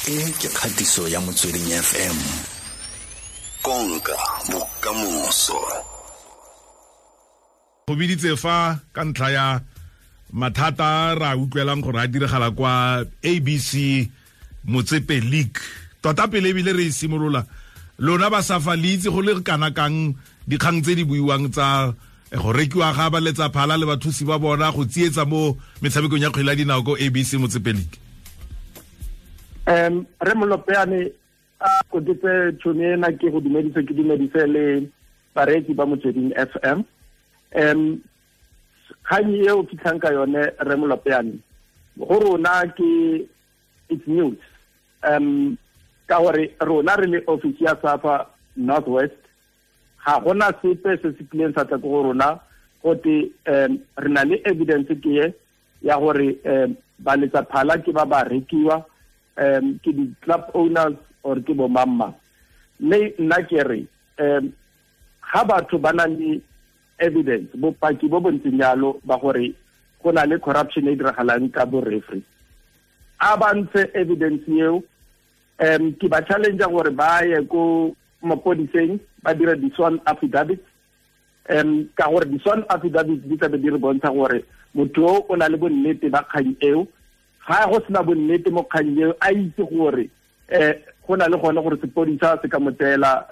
E ke kgatiso ya Motsweding FM. Konka bokamoso. Go biditse fa ka ntlha ya mathata ra utlwelang gore a diragala kwa ABC Motsepe League. Tota pele ebile re e simolola, lona ba SAFA le itse go le kana kang dikgang tse di buiwang tsa go rekiwa ga ba letsa phala le bathusi ba bona go tsietsa mo metshamekong ya kgwele ya dinao ko ABC Motsepe League? Re Molopeane a kotetse tšhono ena ke go dumedise, ke dumedise le bareetsi ba Motsweding FM. Kgang e o fitlhang ka yone re Molopeane go rona ke it's news. Ka gore rona re le office ya SAFA Northwest ga gona sepe se se kileng sa tla ko go rona gote re na le evidence ke e ya gore ba letsa phala ke ba ba rekiwa ke di-club owners or ke bo mamma. Mme nna ke re ga batho ba na le evidence, bopaki bo bontseng jalo ba gore go na le corruption e diragalang ka bo referee, a ba ntshe evidence eo. Ke ba challenge gore ba ye ko mapodiseng ba dire di-sworn affidavits, ka gore di-sworn affidavits di tlabe di re bontsha gore motho o o na le bonnete ba kgang eo. Ga go sena bonnete mo kgang eo, a itse gore go na le gone gore sepodisa se ka mo tseela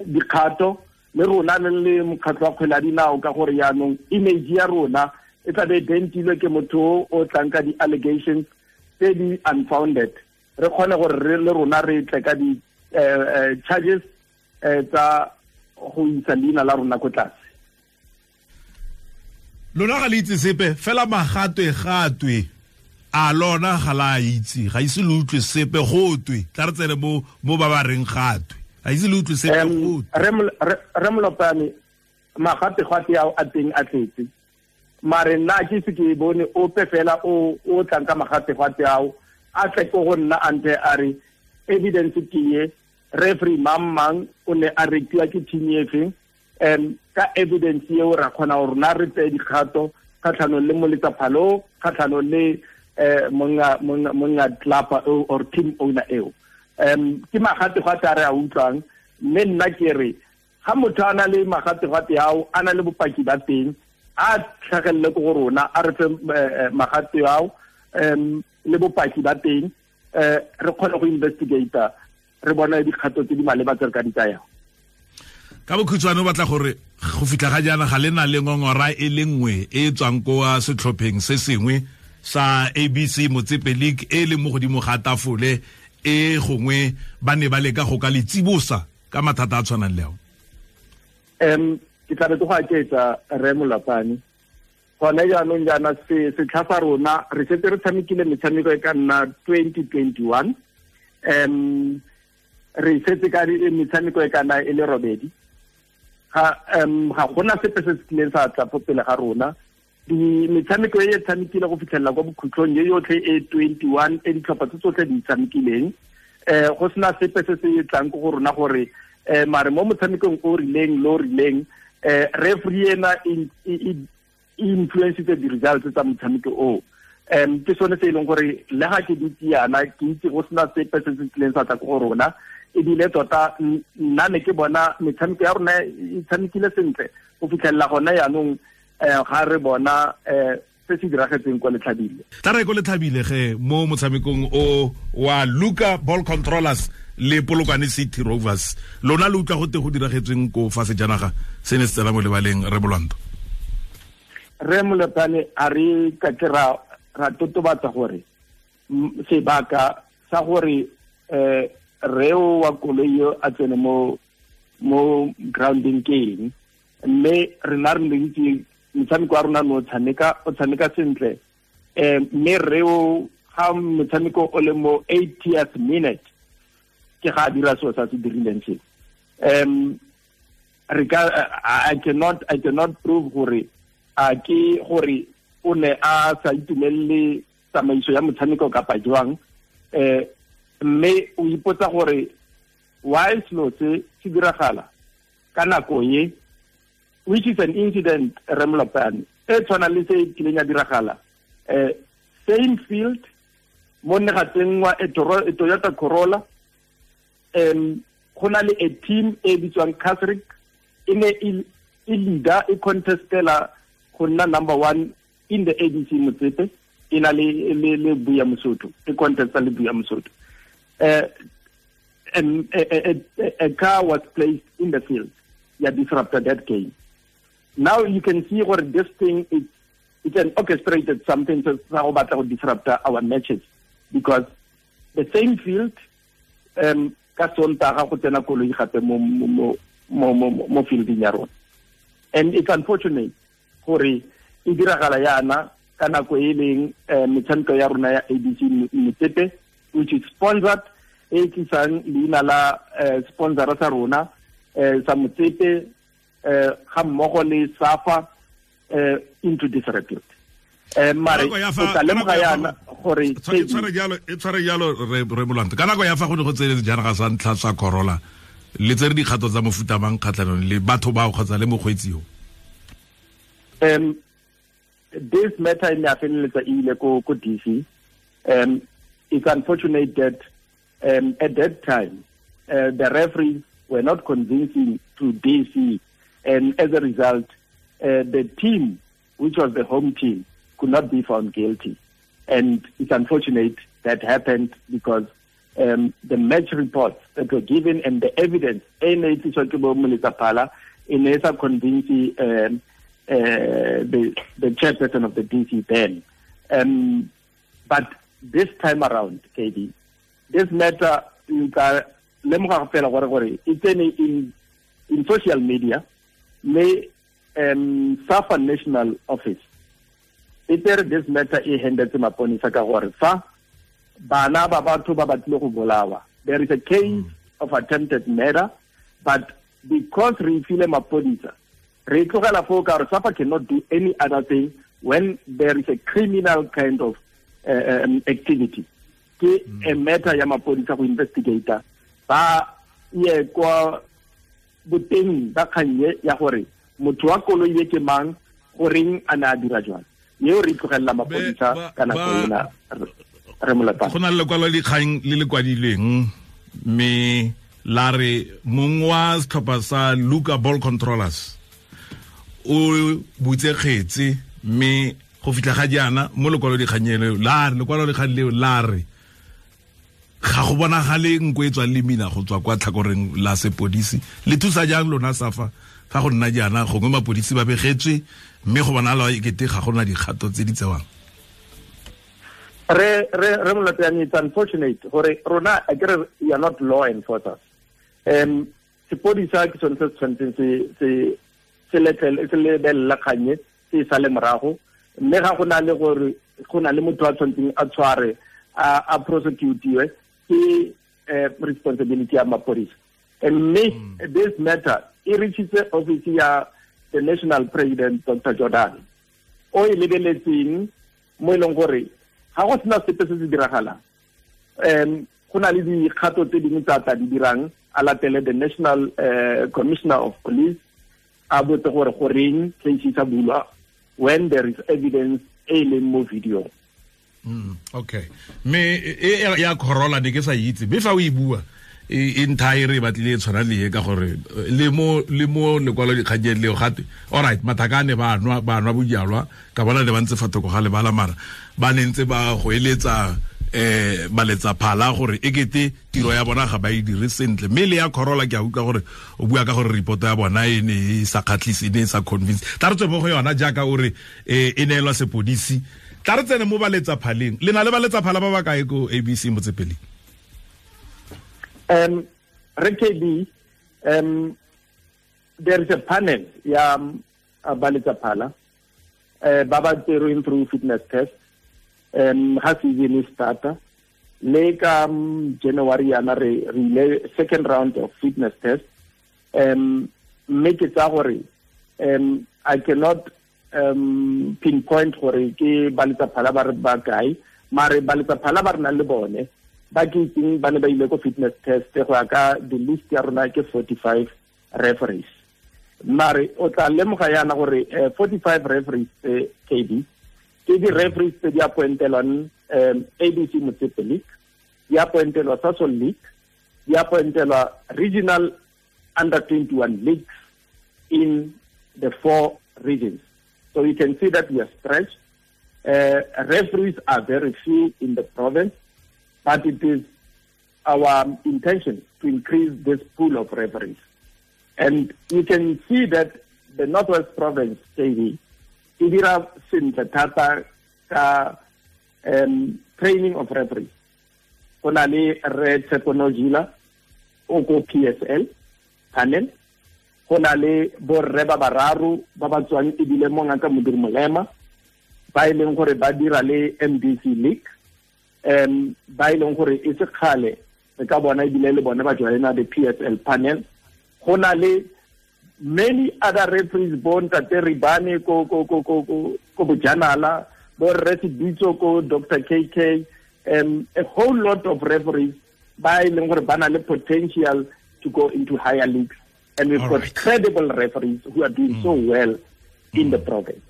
dikgato, le rona le le mokgatlho wa kgwele ya dinao, ka gore jaanong image ya rona e tlabe e dentilwe ke motho o tlang ka di-allegations tse di unfounded. Re kgone gore re le rona re tle ka di-charges tsa go isa leina la rona ko tlase. Lona ga le itse sepe fela, magatwe gatwe a lona ga la itse, ga ise le utlwe sepe gotwe. Tla re tsene mo ba ba reng gatwe, ga ise le utlwe sepe gotwe. Re Molopane, magatwe gatwe ao a teng a tletse, mare nna ke se ke bone ope fela o tlang ka magatwe gatwe ao a tle ko go nna a nthe a re evidence ke ye, referee mang mang o ne a rekiwa ke team e feng. Ka evidence eo ra kgona gore rona re tseye dikgato kgatlhanong le moletsaphalo, kgatlhanong le monga club or team owner eo. Ke magategate a re a utlwang, mme nna ke re ga motho a na le magategate ao, a na le bopaki ba teng, a tlhagelele ko go rona, a re fe magate ao le bopaki ba teng, re kgone go investigate, re bone dikgato tse di maleba tse re ka di tsayang. Ka bokhutshwane o batla gore go fitlha ga jaana ga le na le ngongora e le nngwe e tswang ko setlhopheng se sengwe sa ABC Motsepe League e leng mo godimo ga tafole e gongwe ba ne ba leka go ka le tsibosa ka mathata a tshwanang le ao? Ke tla be ke go aketsa re Molapane. Gone jaanong jaana setlha sa rona re setse re tshamekile metshameko e ka nna 2021. Re setse ka metshameko e ka nna e le robedi. Ga gona sepe se se tlileng sa tla fo pele ga rona. Metshameko e e tshamekile go fitlhelela kwa bokhutlong e yotlhe e 21 e ditlhopha tse tsotlhe di tshamekileng. Go sena sepe se se tlang ko go rona gore mare mo motshamekong o rileng lo rileng referee ena e influencitse di-results tsa motshameko oo. Ke sone se e leng gore le ga ke dutse yana ke itse go sena sepe se se tlileng sa tla ko go rona. Ebile tota nna ne ke bona metshameko ya rona e tshamekile sentle go fitlhelela gone jaanong ga re bona se se diragetseng kwa Letlhabile. Tla re ko Letlhabile ge mo motshamekong o wa Luka Ball Controllers le Polokwane City Rovers, lona le utlwa gote go diragetsweng ko fa sejanaga se ne se tsena mo lebaleng, re Molwanto? Re Molopane, a re ka ke ra totobatsa gore sebaka sa gore reo wa koloi eo a tsene mo grounding ke eng, mme rena re itse motshameko wa rona no o tshameka sentle. Mme reo ga motshameko o le mo 80th minute ke ga a dira seo sa se dirileng se. Re ka I cannot prove gore a ke gore o ne a sa itumelele tsamaiso ya motshameko kapa jwang. Mme o ipotsa gore why selo se se diragala ka nako e, which is an incident re Molopane e tshwana le se kileng ya diragala same field Mo ne ga tsenngwa e Toyota Corolla. Go na le a team e bitswang Casric, e ne e leader, e contestela go nna number 1 in the ABC Motsepe, e na le Buya Mosotho, e contesta le Buya Mosotho. And a car was placed in the field. Yeah, disrupted that game. Now you can see where this thing is, it's an orchestrated something to disrupt our matches, because the same field, ka Sontaga go tsena koloi gape mo fielding ya rona. And it's unfortunate gore e diragala yana ka nako e leng metshameko ya rona ya ABC Motsepe, which is sponsored, e tlisang leina la sponsor sa rona sa Motsepe ga mmogo le SAFA into disrepute. Mare o tla lemoga yana gore e tshware jalo re Molwanto. Ka nako ya fa go ne go tsenetse janaga sa ntlha sa Corolla, le tsere dikgato tsa mofuta mang kgatlhanong le batho bao kgotsa le mokgweetsi yo? This matter in feleletsa e ile ko DC. It's unfortunate that at that time the referees were not convincing to DC, and as a result the team, which was the home team, could not be found guilty. And it's unfortunate that happened, because the match reports that were given and the evidence in convincing the chairperson of the DC then. But this time around, KD, this matter, it's in social media, may SAFA National Office, this matter e handed to maponisa ka gore fa bana ba batho ba batlile go bolawa, there is a case of attempted murder, but because re file maponisa, re tlogela foo ka gore SAFA cannot do any other thing when there is a criminal kind of activity. Ke a matter ya maponisa go investigator ba ye kwa boteng ba kgannye ya gore motho wa koloi e ke mang, goreng a ne a dira jwang. Yeo re tlogelela maponisa ka nako ena re Molapane. Go na le lekwalo dikgang le le kwadilweng mme la re mong wa setlhopha sa Luka Ball Controllers o butse kgetse, mme go fitlha ga jaana mo lekwalo dikgang leo la re, lekwalo dikgang leo la re ga go bonagale nko e tswang le mina go tswa kwa tlhakoreng la sepodisi. Le thusa jang lona SAFA fa go nna jaana, gongwe mapodisi ba begetswe mme go bonala e kete ga gona dikgato tse di tsewang? Re Molapane, it's unfortunate gore rona akere we are not law enforcers. Sepodisa ke sone se tshwanetseng se lebelela kganye se sa le morago, mme ga go na le gore go na le motho a tshwanetseng a tshware a prosecutiwe, ke responsibility ya mapodisa. And this matter e reachitse office ya the national president Dr. Jordan, o e lebeletseng mo e leng gore ga go sena sepe se se diragalang, go na le dikgato tse dingwe tsa tla di dirang, a latele the national commissioner of police, a botse gore goreng case sa bulwa when there is evidence e leng mo video. Okay. Me e ya Corolla ne ke sa itse, mme fa o e bua e nthae re batlile e tshwana le e ka gore le mo lekwalo dikganyeng leo gate alright, mathakane ba nwa bojalwa ka bona le ba ntse fa thoko ga lebala, mara ba ne ntse ba go eletsa ba letsa phala gore e kete tiro ya bona ga ba e dire sentle. Mme le ya Corolla ke a utlwa gore o bua ka gore report ya bona e ne e sa kgatlhise, e ne e sa convince. Tla re tswe mo go yona jaaka o re e neelwa sepodisi. Tla re tsene mo ba letsa phaleng. Le na le ba letsa phala ba ba kae ko ABC Motsepe? RKB, there is a panel ya ba letsa phala ba ba tserweng through fitness test ha season e starta le ka January yana re ile second round of fitness test. Mme ke tsa gore I cannot pinpoint gore ke ba letsa phala ba re ba kae, mare ba letsa phala ba re nang le bone ba ke itseng ba ne ba ile ko fitness test go ya ka the list ya rona ke 45 referees. Mare o tla lemoga yana gore 45 referees KB Ke di-referees tse di appointelwang ABC Motsepe League, di appointelwa Sasol League, di appointelwa regional under 21 leagues in the 4 regions. So you can see that we are stretched. Referees are very few in the province, but it is our intention to increase this pool of referees. And you can see that the Northwest Province, KV, e dira sentle thata ka training of referees. Go na le Re Tshepo Nojila o ko PSL panel, go na le borre ba bararo ba ba tswang ebile mo Ngaka Modiri Molema, ba e leng gore ba dira le MDC League, ba e leng gore e se kgale re ka bona ebile le bone ba joina the PSL panel. Go na le many other referees, bo Ntate Ribane ko ko ko ko ko Bojanala, bo Rre Sebitso ko Dr. KK, a whole lot of referees ba e leng gore ba na le potential to go into higher leagues, and we've got credible referees who are doing so well in the province.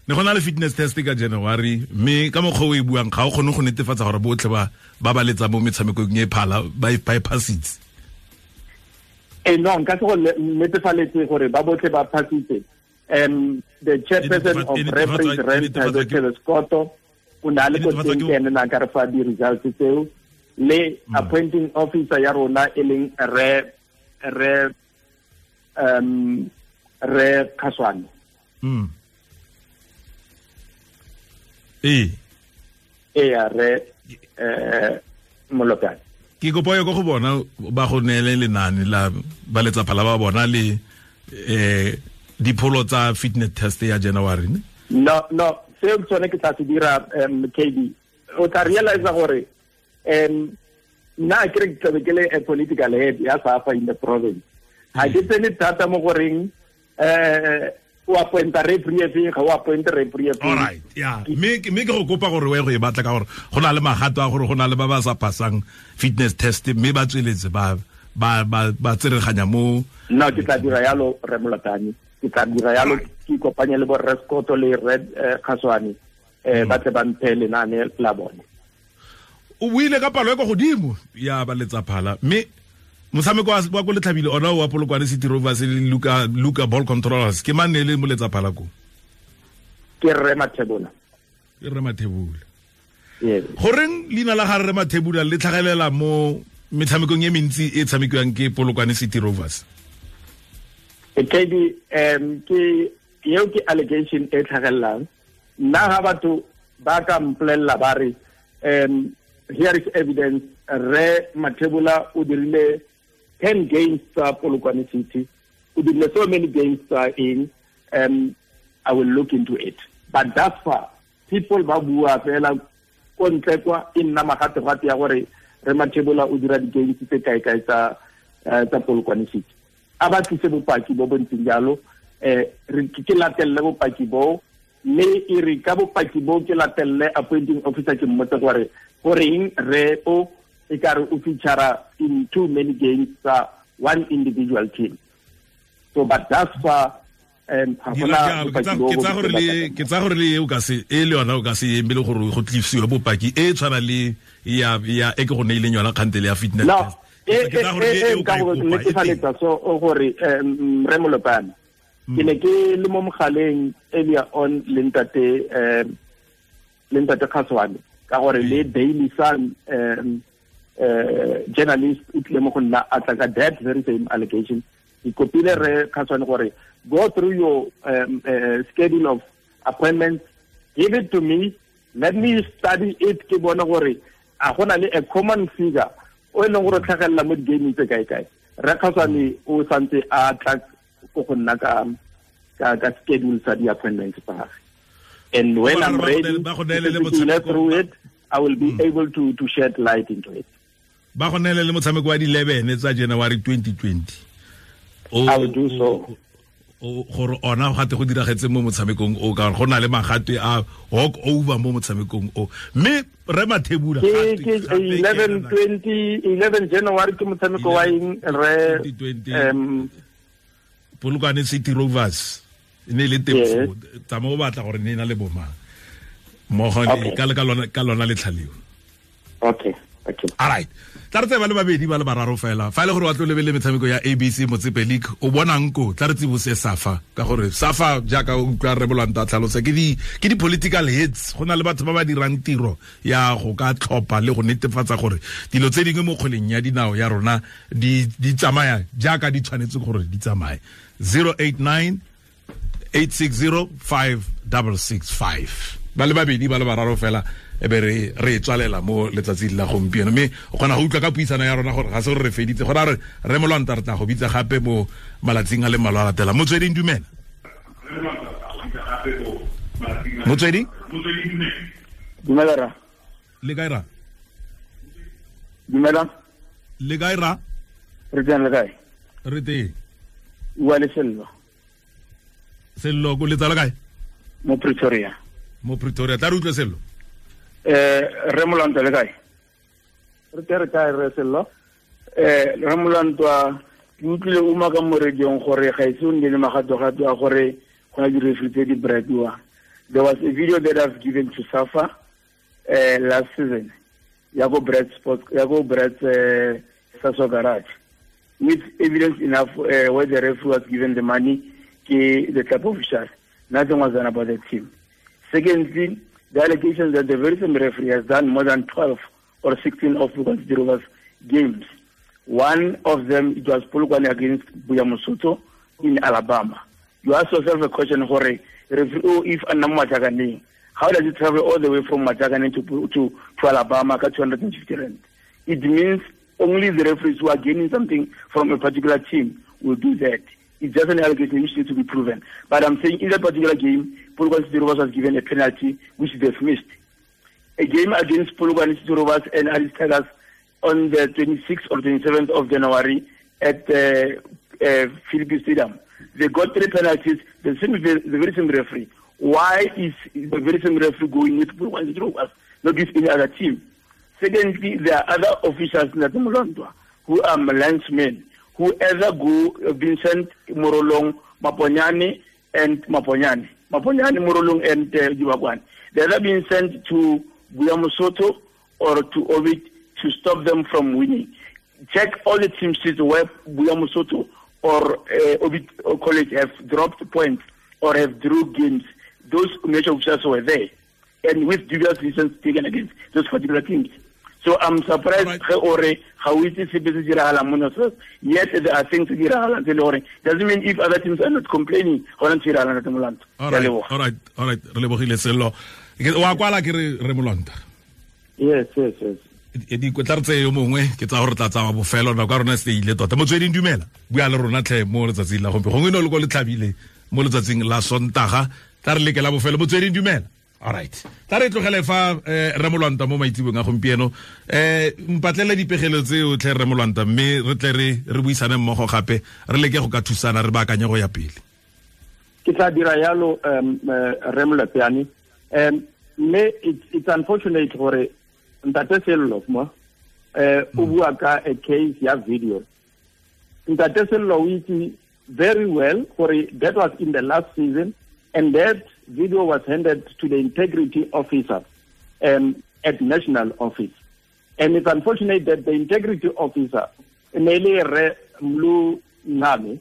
Ne go na le fitness test ka January, mme ka mokgwa o e buang ga o kgone go netefatsa gore botlhe ba ba letsa mo metshamekong e phala ba e passitse. No, nka se go netefaletse gore ba botlhe ba passitse. The chairperson of referees, Rre Scotto, o ne a le ko teng, ke ene na ka re fa di-results tseo, le appointing officer ya rona e leng Rre Khaswane. Ee, Rre Molopane. Ke kopo ya go bona ba go neele lenane la ba letsaphala ba bona le dipholo tsa fitness test ya January ne? No, seo tsone ke tla se dira, KB. O tla realize gore nna ke re ke tlabe ke le a political head ya SAFA in the province. Ha ke tsene thata mo goreng o appointa referee efe, ga o appointe referee efe. All right, yeah. Mme ke go kopa gore o ye go e batla ka gore go na le magato a gore go na le ba ba sa passang fitness test mme ba tsweletse ba ba tsereganya mo. No, ke tla dira yalo, Rre Molopane. Ke tla dira yalo, ke ikopanye le bo Rre Scotto le Rre Khaswane, ba tle ba mphe lenane la bone. O buile ka palo e kwa godimo ya ba letsaphala, mme motshameko wa ko Letlhabile ona wa Polokwane City Rovers le Luka Ball Controllers, ke mang ne le mo letsaphala ko? Ke Rre Mathebula. Ke Rre Mathebula. Yes. Goreng leina la ga Rre Mathebula le tlhagelela mo metshamekong e mentsi e tshamekiwang ke Polokwane City Rovers? KB, ke eo ke allegation e tlhagelelang. Nna ga batho ba ka mpolelela ba re here is evidence, Rre Mathebula o dirile 10 games tsa Polokwane City, o dirile so many games tsa eng, I will look into it. But thus far, people ba bua fela ko ntle kwa, e nna magategate ya gore Rre Mathebula o dira di-games tse kae-kae tsa Polokwane City. A ba tlise bopaki bo bo ntseng jalo, ke latelele bopaki bo, mme e re ka bopaki bo ke latelele appointing officer ke mmotse gore goreng re o e ka re o feature in too many games tsa one individual team. So but thus far, ke tsa gore le o ka se e le yona o ka se emele gore go tlisiwe bopaki e tshwana le ya e ke go neileng yona kgantele ya fitness test. E ka go netefaletsa so gore Rre Molopane, ke ne ke le mo mogaleng earlier on le ntate Khaswane, ka gore le Daily Sun journalist o tlile mo go nna a tla ka that very same allegation. Ke kopile Rre Khaswane gore go through your schedule of appointments, give it to me, let me study it, ke bone gore a gona le a common figure o e leng gore tlhagelela mo di-gaming tse kae-kae. Rre Khaswane o santse a tla ko go nna ka schedule sa di-appointments tsa gagwe. And when I'm ready to go through it, I will be able to shed light into it. Ba go neele le motshameko wa di-11 tsa January 2020. I will do so. Gore ona gate go diragetse mo motshamekong o, ka gore go na le magatwe a walk over mo motshamekong o. Mme Rre Mathebula ke 11 January ke motshameko wa eng, Rre? Polokwane City Rovers e ne le teng foo, tsamao o batla gore ne e na le bomang. Mmogo ka lona letlhaleo. Okay. All right. Tla re tse ba le babedi ba le bararo fela. Fa ile gore wa tlo lebele metshameko ya ABC Motsepe League o bonang ko tla re tsibose SAFA ka gore SAFA jaaka o utlwa re bolanta tlhalosa ke di political heads, go na le batho ba ba dirang tiro ya go ka tlhopa le go netefatsa gore dilo tse dingwe mo kgweleng ya dinao ya rona di tsamaya jaaka di tshwanetse gore di tsamaye. 089 860 5665 ba le babedi ba le bararo fela e be re tswalela mo letsatsing la gompieno, mme o kgona go utlwa ka puisano ya rona gore ga se gore re feditse, go ra re Molwanta re tla go bitsa gape mo malatsing a le mmalwa a latela. Motsweding dumela. Motsweding dumela ra. Le kae ra? Dumela. Le kae ra? Re teng, le kae? Re teng. Wa le Sello. Sello ko letsa le kae? Mo Pretoria. Mo Pretoria, tla re utlwe Sello. Re Molwanta le kae? Re tere kae re Sello? Re Molwanta ke utlwile o maka mo radiong gore ga ise o nne le magatogato a gore go na di-referee tse di bribiwa. There was a video that I've given to SAFA last season ya go Brad Sports, ya go Brad Saso Garage, with evidence enough where the referee was given the money ke the club official. Nothing was done about the team. Secondly, the allegations that the very same referee has done more than 12 or 16 of Polokwane City Rovers games. One of them, it was Polokwane against Buyamosoto in Alabama. You ask yourself a question, Hore, referee, oh, if Anam, how does it travel all the way from Majakane to Alabama at 250 rand? It means only the referees who are gaining something from a particular team will do that. It's just an allegation which needs to be proven. But I'm saying in that particular game, Polokwane City Rovers was given a penalty which they've missed. A game against Polokwane City Rovers and Alice Tigers on the 26th or 27th of January at Philippi Stadium. They got 3 penalties, the very same referee. Why is the very same referee going with Polokwane City Rovers, not with any other team? Secondly, there are other officials in Molwantwa who are linesmen, who either go Vincent Morolong, Maponyane, and Maponyane. Maponyane, Morolong, and Dibakwane. They're either being sent to Buyamosoto or to Ovid to stop them from winning. Check all the team sheets where Buyamosoto or Ovid College have dropped points or have drew games. Those major officials were there, and with dubious reasons taken against those particular teams. So I'm surprised yet there are things doesn't mean if other teams are not complaining. All right. Re lebogile Sello. Wa kwala ke re Molwanta. Yes. Di tla re tseye yo mongwe ke tsa gore tla tsamaya bofelo nako ya rona se ile tota. Motsweding dumela. Bua le rona tlhe mo letsatsing la gompieno. Gongwe ne o le ko le tlhabile mo letsatsing la Sontaga. Tla re leke la bofelo. Motsweding dumela. All right. Tla re tlogele fa re Molwanta mo maitsebong a gompieno. Mpatlele dipegelo tseo tlhe re Molwanta mme re tle re buisane mmogo gape re leke go ka thusana re baakanye go ya pele. Ke tla dira yalo re Molapeane. Mme it's unfortunate gore Ntate Sello mo o bua ka a case ya video. Ntate Sello o itse very well gore that was in the last season, and that video was handed to the integrity officer at national office. And it's unfortunate that the integrity officer, Nele Re Mlu Ngame,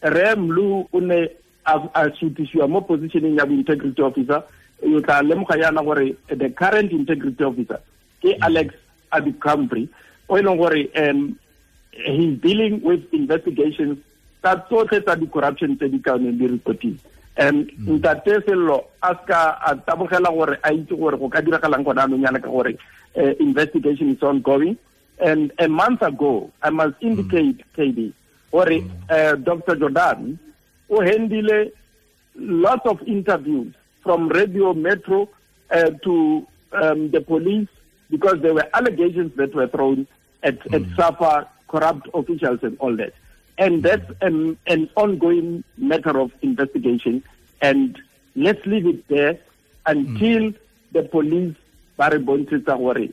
Re Mlu une a sutisiwa mo positioning ya integrity officer, you tla lemoga yana gore the current integrity officer ke Alex Abikambre, o e leng gore he's dealing with investigations tsa tsotlhe tsa di-corruption tse di ka neng di reportile. Ntate Sello a ska a tabogela gore a itse gore go ka diragalang gona anong yana ka gore investigation is ongoing. And a month ago, I must indicate, KD, gore Dr. Jordan o handile lots of interviews from Radio Metro to the police, because there were allegations that were thrown at SAFA, corrupt officials and all that. And that's an ongoing matter of investigation. And let's leave it there until the police ba re bontshetsa gore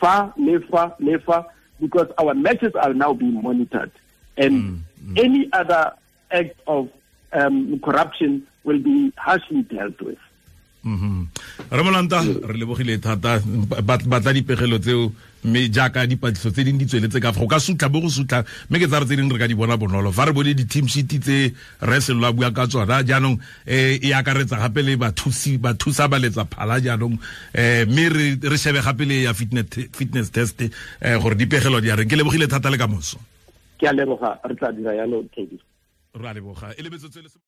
fa le fa le fa, because our matches are now being monitored. And any other act of corruption will be harshly dealt with. Ramolanta re lebogile thata, batla dipegelo tseo, mme jaaka dipatlisiso tse dingwe di tsweletse ka fa go ka sutlha bo go sutlha, mme ke tsa re tse dingwe re ka di bona bonolo fa re bone di-team sheet tse re Sello a bua ka tsona jaanong, e akaretsa gape le bathusi, bathusa ba letsa phala jaanong, mme re shebe gape le ya fitness test, gore dipegelo di a reng. Ke lebogile thata, le ka moso. Ke a leboga, re tla dira yalo, Teddy. Re a leboga, e le metsotso e le